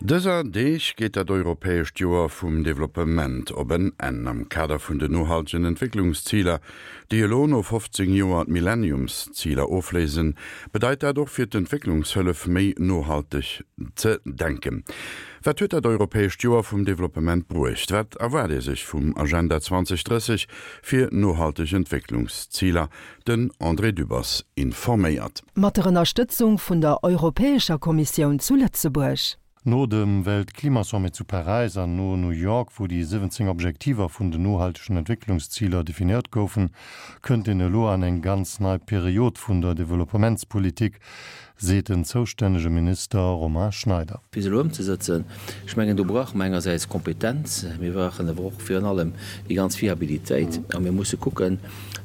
Dëser Deeg geet dat europäescht Joer vum Developpement op en Enn. Am Kader vun den nohaltegen Entwécklungsziler, déi elo no 15 Joer d'Millenniumsziler ofléisen, bedeit dat och fir d'Entwécklungshëllef méi nohalteg ze denken. Wat huet dat europäescht Joer vum Developpement bruecht? Wat erwaart ee sech vum Agenda 2030 fir nohalteg Entwécklungsziler? Den André Dübbers informéiert. Mat der Ënnerstëtzung vun der Europäescher Kommissioun zu Lëtzebuerg. No dem Weltklimasommet zu Paräis an no New York, wou déi 17 Objektiver vun den nohaltegen Entwécklungsziler definéiert goufen, kënnt een elo an eng ganz nei Period vun der Developpementspolitik, seet den zoustännege Minister Romain Schneider. Fir se elo ëmzesëtzen, ech mengen, do brauche mer engersäits Kompetenz, mir brauchen awer och virun allem déi ganz Fiabilitéit a mir musse kucken,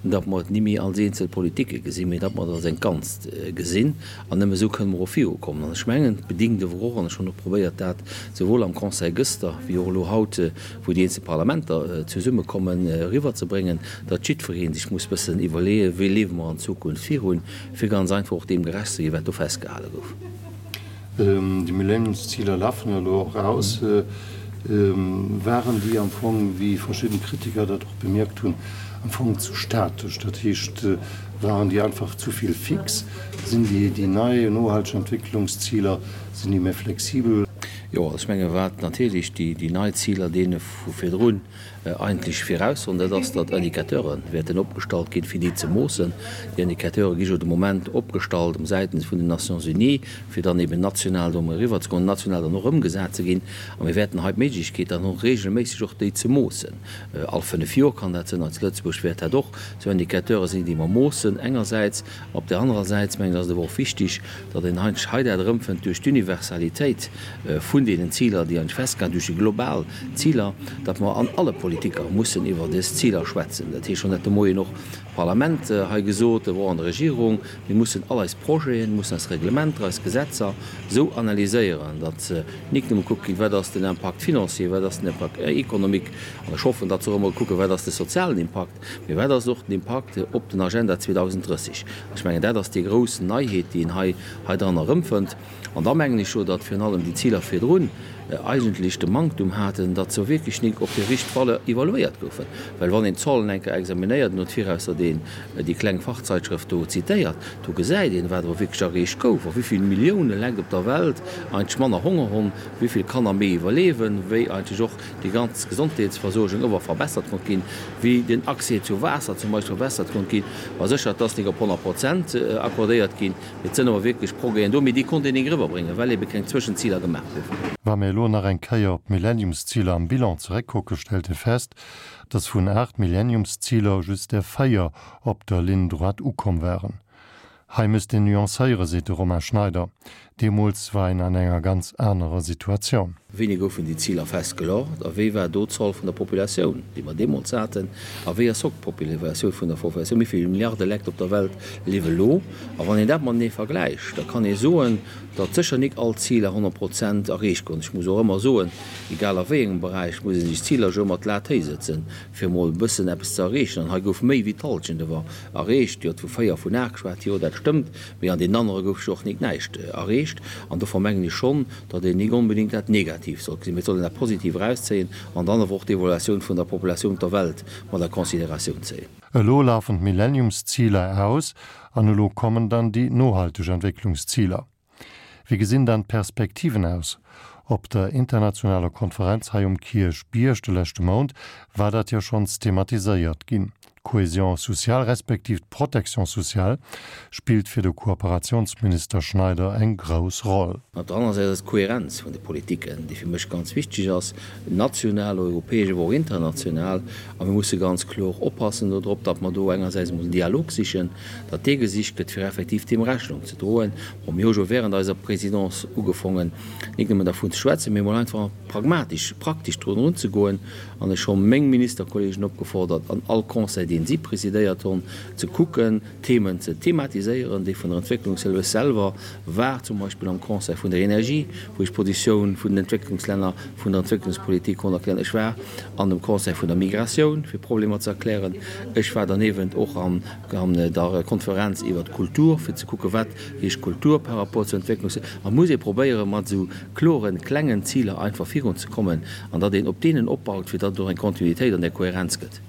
datt mer et ni méi als eenzel Politike gesinn, mee datt mer et als eng Ganzt gesinn. An nëmme esou kënne mer och virukommen. An ech mengen, et bedingt awer och, an ech hunn och probéiert dat souwuel am Conseil gëster wéi och elo haut, wou déi eenzel Parlamenter zesummekommen, eriwwerzebréngen, datt jiddweree sech muss bëssen iwwerleeën, wéi liewe mer an Zukunft virun, fir ganz einfach och deem gerecht ze ginn, wat do festgehale gouf. Déi Millenniumsziler lafen elo och aus. Waren déi am Fong, wéi verschidden Kritiker dat och bemierkt hunn, am Fong zu statesch? Dat heescht, waren déi einfach zu vill fix? Sinn déi déi nei nohalteg Entwécklungsziler, sinn déi méi flexibel? Jo, also ech menge wat natierlech déi nei Ziler deene vu virdrun eigentlech viraussoen, dat ass, datt Indicateure wäerten opgestallt ginn, fir déi ze moossen. Déi Indicateure gi jo de Moment opgestallt um säitens vun den Nations Unies, fir dann eben national do emol eriwwerzekommen, national dann och ëmgesat ze ginn. A mir wäerten hei d'Méiglechkeet dann hunn, regelméisseg och déi ze moossen. All fënnf Joer kann dat sinn. Hei zu Lëtzebuerg wäert dat och esou Indicateure sinn, déi mer moossen engersäits. Op där anerer Säit, mengen ech, ass et awer och wichtig, datt een eigentlech hei dat erëmfënnt duerch d'Universalitéit vun deenen Ziler, déi eigentlech festgehalen, duerch déi global Ziler, datt mer an alle Politiker mussen iwwer dës Ziler schwätzen. Dat heescht, schonn dat de Moien och d'Parlament hei gesot, awer och an der Regierung, mir mussen all eis Projeten, mussen eis Reglementer, eis Gesetzer esou analyséieren, datt nik nëmme gekuckt ginn, wat ass den Impact financier, wat ass den Impact économique, an ech hoffen, datt se och ëmmer kucken, wat ass de sozialen Impakt, Mee wat ass och den Impakt op den Agenda 2030? Ech mengen, dat ass déi grouss Neiheet, déi een hei heidran erëmfënnt. An da mengen ech jo, datt virun allem déi Ziler virdrun eigentlech de Manktum haten, datt se wierklech nik op hir richteg Valeur evaluéiert goufen. Well wann een d'Zahlen eng Kéier examinéiert, no d'Virausser deen déi kleng Fachzeitschrëft do zitéiert, do gesäit een, wat awer wierklech erreecht gouf a wéi vill Millioune Lekt op der Welt eigentlech manner Honger honn, wéi vill Kanner méi iwwerleewen, wéi eigentlech och déi ganz Gesondheetsversuergung ëwer verbessert konnt ginn, wéi den Accès zu Waasser zum Beispill verbessert konnt ginn. War sécher, et ass nik op 100 Prozent accordéiert ginn, mee et sënn awer wierklech Progrèsen do, mee déi konnt een nik eriwwerbréngen, well ebe keng Zwëschenziler gemaach goufen. Wa mir elo nach eng Kéier op d'Millenniumsziler am Bilan zeréckkucken, stellt ee fest, dass vun 8 Millenniumsziler just der 4 op der Ligne droite ukomm waren. Hei misst een nuancéieren, seet de Romain Schneider. Deemools war een an enger ganz anerer Situatioun. Wéini goufen déi Ziler festgelort a wéi war do d'Zoll vun der Populatioun, déi mer deemools haten, a wéi ass haut d'Populatioun vun der Populatioun? Wéi vill Milliarde Lekt op der Welt liewe lo? A wann een dat matenee vergläicht, da kann ee soen, datt sécher nik all Ziler 100 Prozent erreecht goufen. Ech muss och ëmmer soen, egal a wéi engem Beräich, muss ee sech Ziler jo ëmmer d'Lat héich sëtzen, fir emol e bëssen eppes ze erreechen. An hei gouf méi wéi d'Hallschent ewer erreecht. Dir hutt vu 4 vun 8 geschwat, jo dat stëmmt, mee an deenen anere gouf jo och nik näischt erreecht. An dofir mengen ech schonn, datt een nik onbedéngt dat negativ sollt gesinn, mee et soll een dat positiv erauszéien an dann awer och d'Evaluatioun vun der Populatioun op der Welt mat a Consideratioun zéien. Elo lafen d'Millenniumsziler aus an elo kommen dann déi nohalteg Entwécklungsziler. Wéi gesinn dann d'Perspektiven aus? Op der internationaler Konferenz hei um Kierchbierg de leschte Mount war dat jo schonns thematiséiert ginn. D'Cohésion sociale respektiv d'Protection sociale spillt fir de Kooperationsminister Schneider eng grouss Roll. Op der anerer Säit ass d'Kohärenz vun de Politiken, déi fir mech ganz wichteg ass, national, europäesch, awer och international. A mir musse ganz kloer oppassen dodrop, datt mer do engersäits emol den Dialog sichen, datt dee gesicht gëtt, fir effektiv deem Rechnung ze droen. Bon, mir hu jo während eiser Présidence ugefongen, nik nëmmen dervun ze schwätzen, mee emol einfach pragmatisch, praktesch drun erunzegoen. An ech hu meng Ministerkollegen opgefordert, an all Conseil. deen si presidéiert hunn, ze kucken, Themen ze thematiséieren, déi vun der Entwécklungshëllef selwer war, zum Beispill am Conseil vun der Energie, wou ech d'Positioun vun den Entwécklungslänner, vun der Entwécklungspolitik konnt erklären. Ech war an dem Conseil vun der Migratioun, fir Problemer ze erklären. Ech war derniewent och an der Konferenz iwwert d'Kultur, fir ze kucken, wat heescht Kultur par rapport zur Entwécklungshëllef. A muss ee probéieren, mat esou kloren, klengen Ziler einfach virunzekommen an datt een op deenen opbaut, fir datt et och eng Kontinuitéit an där Kohärenz gëtt.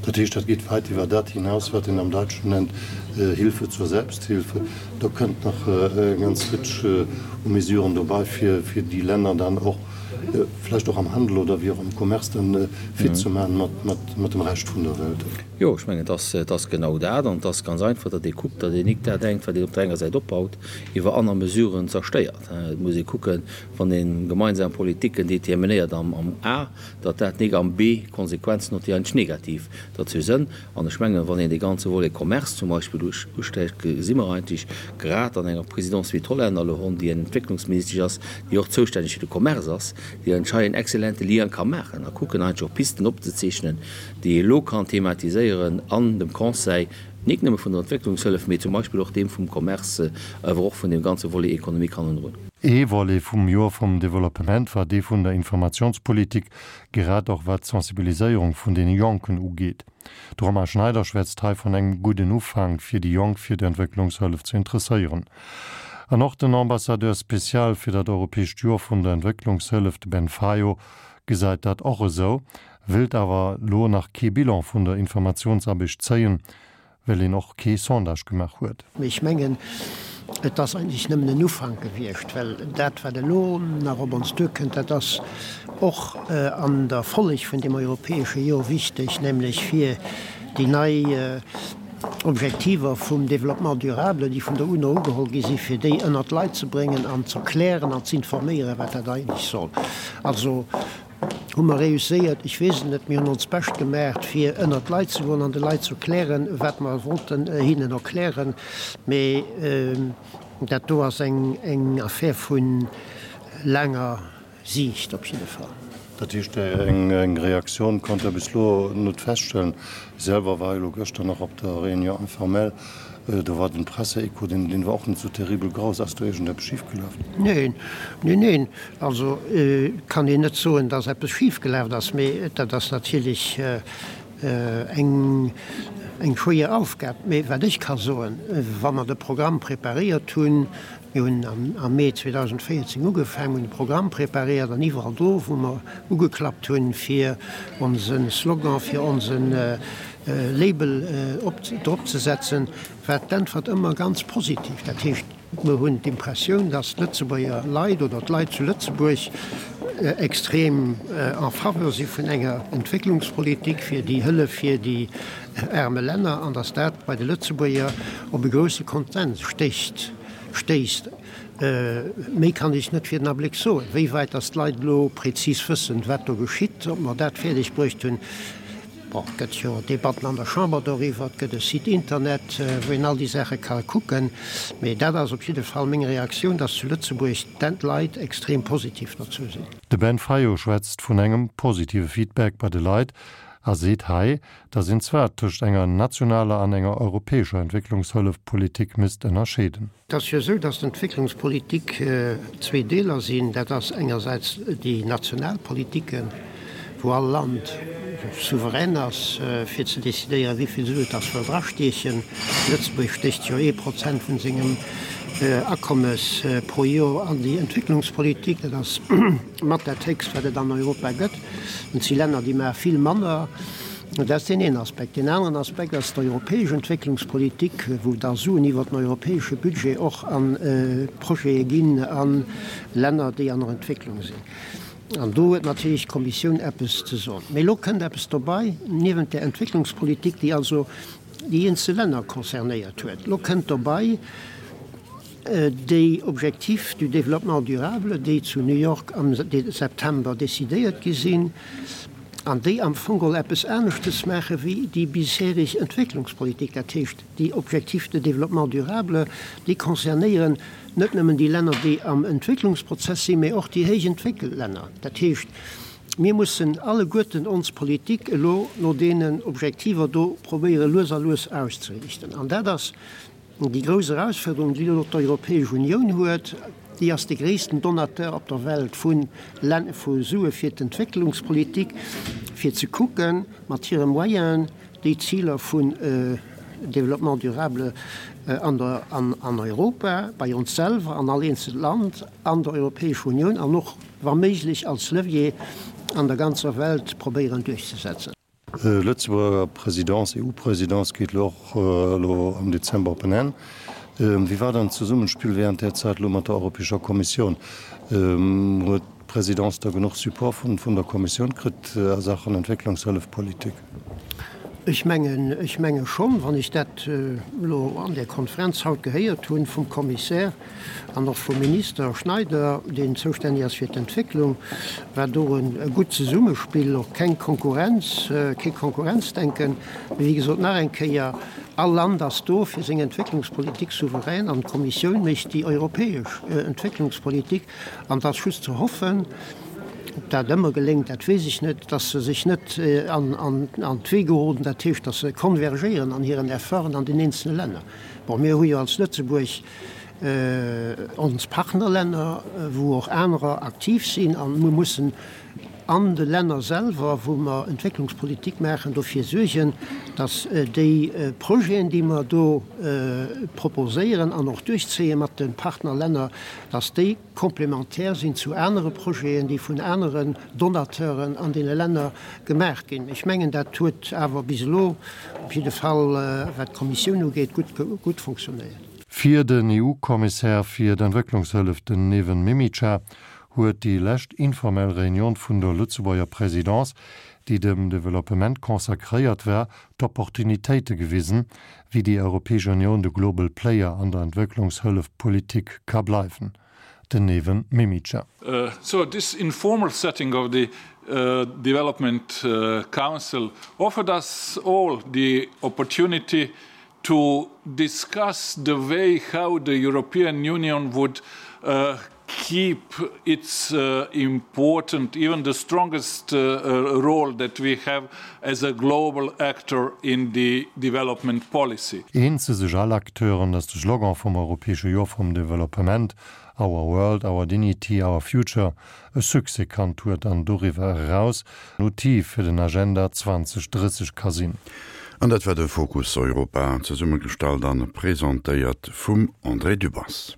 Dat heescht, dat geet wäit iwwer dat hinaus, wat een am Däitschen nennt Hilfe zur Selbsthilfe. Do kënnt nach eng ganz Rëtsch u Mesuren dobei, fir déi Länner dann och vläicht och am Handel oder wéi och am Commerce dann fit ze maachen mat dem Rescht vun der Welt. Jo, ech mengen, et ass genau dat. An et ass ganz einfach, datt ee kuckt, datt een nik dat engt, wat een op der enger Säit opbaut, iwwer aner Mesuren zerstéiert. Et muss ee kucken, wann ee gemeinsam Politiken determinéiert am A, datt dat nik am B Konsequenzen huet, déi eigentlech negativ derzou sënn. An ech mengen, wann een dee ganze Volet Commerce zum Beispill usträicht, gesi mer eigentlech grad an enger Présidence wéi d'Hollänner elo hunn, déi eng Entwécklungsministesch ass, déi och zoustänneg fir de Commerce ass, déi eigentlech hei en excellente Lien ka maachen a kucken eigentlech och Pisten opzezeechnen, déi ee elo kann thematiséieren an dem Conseil, nik nëmme vun der Entwécklungshëllef, mee zum Beispill och deem vum Commerce, awer och vun deem ganze Volet Économique hannendrun. Ee Volet vum Joer vum Developpement war dee vun der Informationspolitik, grad och wat d'Sensibiliséierung vun deene Jonken ugeet. De Romain Schneider schwätzt hei vun engem gudden Ufank, fir déi Jonk fir d'Entwécklungshëllef ze interesséieren. An och den Ambassadeur spécial fir dat europäescht Joer vun der Entwécklungshëllef, de Ben Fayot, gesäit dat och esou, wéilt awer lo nach kee Bilan vun der Informatiounsaarbecht zéien, well een och kee Sondage gemaach huet. Mee ech mengen, et ass eigentlech nëmmen en Ufank gewiescht, well dat, wat elo nach op ons duerkënnt, dat ass och an der Folleg vun deem europäesche Jor wichteg, nämlech fir déi nei Objektiver vum Développement durable, déi vun der UNO ugeholl gi sinn, fir déi ënnert d'Leit ze bréngen an z'erklären an z'informéieren, wat dat eigentlech soll. Also Hu mer réusséiert? Ech weess et net. Mir hunn ons Bescht gemaacht, fir ënnert d'Leit ze goen an de Leit ze erklären, wat mer wollten hinnen erklären. Mee dat do ass eng Affär vu laanger Siicht op jidde Fall. Dat heescht, eng Reaktioun konnt Der bis elo net feststellen. Ech selwer war elo gëschter nach op der Réunion informelle. Do war den Presseecho, deen war och net sou terribel grouss. Ass do iergendeppes schifgelaf? Neen, neen, neen. Also kann een net soen, datt eppes schifgelaf ass, mee dat ass natierlech eng eng schwéier Aufgab. Mee wat ech ka soen, wa mer de Programm preparéiert hunn, mir hunn am Mee 2014 ugefaangen, hunn de Programm preparéiert an iwwerall do, wou mer ugeklappt hunn, fir onse Slogan, fir onse Label drop ze setzen, war d'Äntwert ëmmer ganz positiv. Dat heescht, Mer hunn d'Impressioun, dass d'Lëtzebuerger Leit oder d'Leit zu Lëtzebuerg extrem en faveur si vun enger Entwécklungspolitik fir déi Hëllef fir déi aarme Länner an dass dat bei de Lëtzebuerger op e grousse Konsens stéisst. Méi kann ech net fir den Abléck soen. Wéi wäit dass d'Leit elo prezis wëssen, wat do geschitt, ob mer dat fäerdeg bruecht hunn, Bon, et gëtt jo Debatten an der Chamber doriwwer, et gëtt e Site Internet, wou een all déi Saache ka kucken. Mee dat ass op jidde Fall meng Reaktioun, dass zu Lëtzebuerg d'Leit extrem positiv dozou sinn. De Ben Fayot schwätzt vun engem positive Feedback bei de Leit a seet hei, datt een zwar tëscht enger nationaler an enger europäescher Entwécklungshëllefpolitik misst ënnerscheeden. Et ass jo esou, dass d'Entwécklungspolitik zwee Deeler sinn. Dat ass engersäits déi national Politiken, wou all Land souverän ass, fir ze decidéieren, wéi vill Sue et ass wëll drastiechen. Lëtzebuerg stécht jo ee Prozent vun sengem Akommes pro Joer an déi Entwécklungspolitik. Dat ass mat dat héchst, wat et an Europa gëtt. Et si Länner, déi maache vill manner. Dat ass deen een Aspekt. Deen aneren Aspekt ass d'europäesch Entwécklungspolitik, wou da Suen iwwert den europäesche Budget och a Projete ginn a Länner, déi an der Entwécklung sinn. An do huet natierlech d'Kommissioun eppes ze soen. Mee elo kënnt eppes dobei, niewent där Entwécklungspolitik, déi also déi eenzel Länner concernéiert huet, elo kënnt dobei déi Objectifs du développement durable, déi zu New York am September decidéiert gi sinn, an déi am Fong geholl eppes aneschtes maache wéi déi bisherig Entwécklungspolitik. Dat heescht, déi Objectifs de développement durable, déi concernéieren net nëmmen déi Länner, déi am Entwécklungsprozess sinn, mä och déi héich entwéckelt Länner. Dat heescht, Mir mussen alleguerten ons Politik elo no deenen Objektiver do probéiere lues a lues auszeriichten. An dat ass déi grouss Erausfuerderung, déi elo d'Europäesch Unioun huet. Déi ass de gréissten Donateur op der Welt vu vu Sue fir d'Entwécklungspolitik, fir ze kucken, mat hire Moyenen déi Ziler vun Développement durable an der an Europa, bei ons selwer, an all eenzelt Land, an der Europäescher Unioun an och wa méiglech als Levier an der ganzer Welt probéieren duerchzesetzen. Lëtzebuerger Présidence, EU-Présidence geet elo och elo am Dezember op en Enn. Wéi war dann d'Zesummenspill während där Zäit elo mat der Europäescher Kommissioun? Huet d'Présidence da genuch Support vun der Kommissioun kritt a Saachen Entwécklungshëllefpolitik? Ech mengen, ech menge schonn, wann ech dat elo an där Konferenz haut gehéiert hunn vum Kommissär an och vum Minister Schneider, deen zoustänneg ass fir d'Entwécklung, war do e gutt Zesummespill, och keng Konkurrenz, kee Konkurrenzdenken. Mee wéi gesot, nach eng Kéier, All Land ass do fir seng Entwécklungspolitik souverän an d'Kommissioun mécht déi europäesch Entwécklungspolitik. An et ass just ze hoffen, Ob dat ëmmer geléngt, dat weess ech net, dass se sech net an d'Wee geroden, dat heescht, dass se konvergéieren an hiren Efforten an den eenzele Länner. Bon, mir hu jo als Lëtzebuerg ons Partnerlänner, wou och anerer aktiv sinn, a mir mussen an de Länner selwer, wou mer Entwécklungspolitik maachen, dofir suergen, dass déi Projeten, déi mer do proposéieren an och duerchzéie mat de Partnerlänner, dass déi, komplementär sinn zu anere Projeten, déi vun aneren Donateuren an deene Länner gemaach ginn. Ech mengen, dat huet awer bis elo op jidde Fall, wat d'Kommissioun ugeet, gutt, gutt funktionéiert. Fir den EU-Kommissär fir d'Entwécklungshëllef, den Neven Mimica, huet déi lescht informell Reunion vun der Lëtzebuerger Présidence, déi dem Developpement consacréiert war, d'Opportunitéite gewisen, wéi déi Europäesch Unioun de Global Player an der Entwécklungshëllefpolitik ka bleiwen. Den Neven Mimica. So this informal setting of the Development Council offered us all the opportunity to discuss the way how the European Union would keep its important, even the strongest role that we have as a global actor in the development policy. Eens si sech all Acteuren, datt de Slogan vum Europäesche Joer vum Developpement, Our World, Our Dignity, Our Future, e Succès kannt huet an doriwwer eraus en Outil fir den Agenda 2030 ka sinn. An dat war de Fokus Europa, zesummegestallt an presentéiert vum André Dübbers.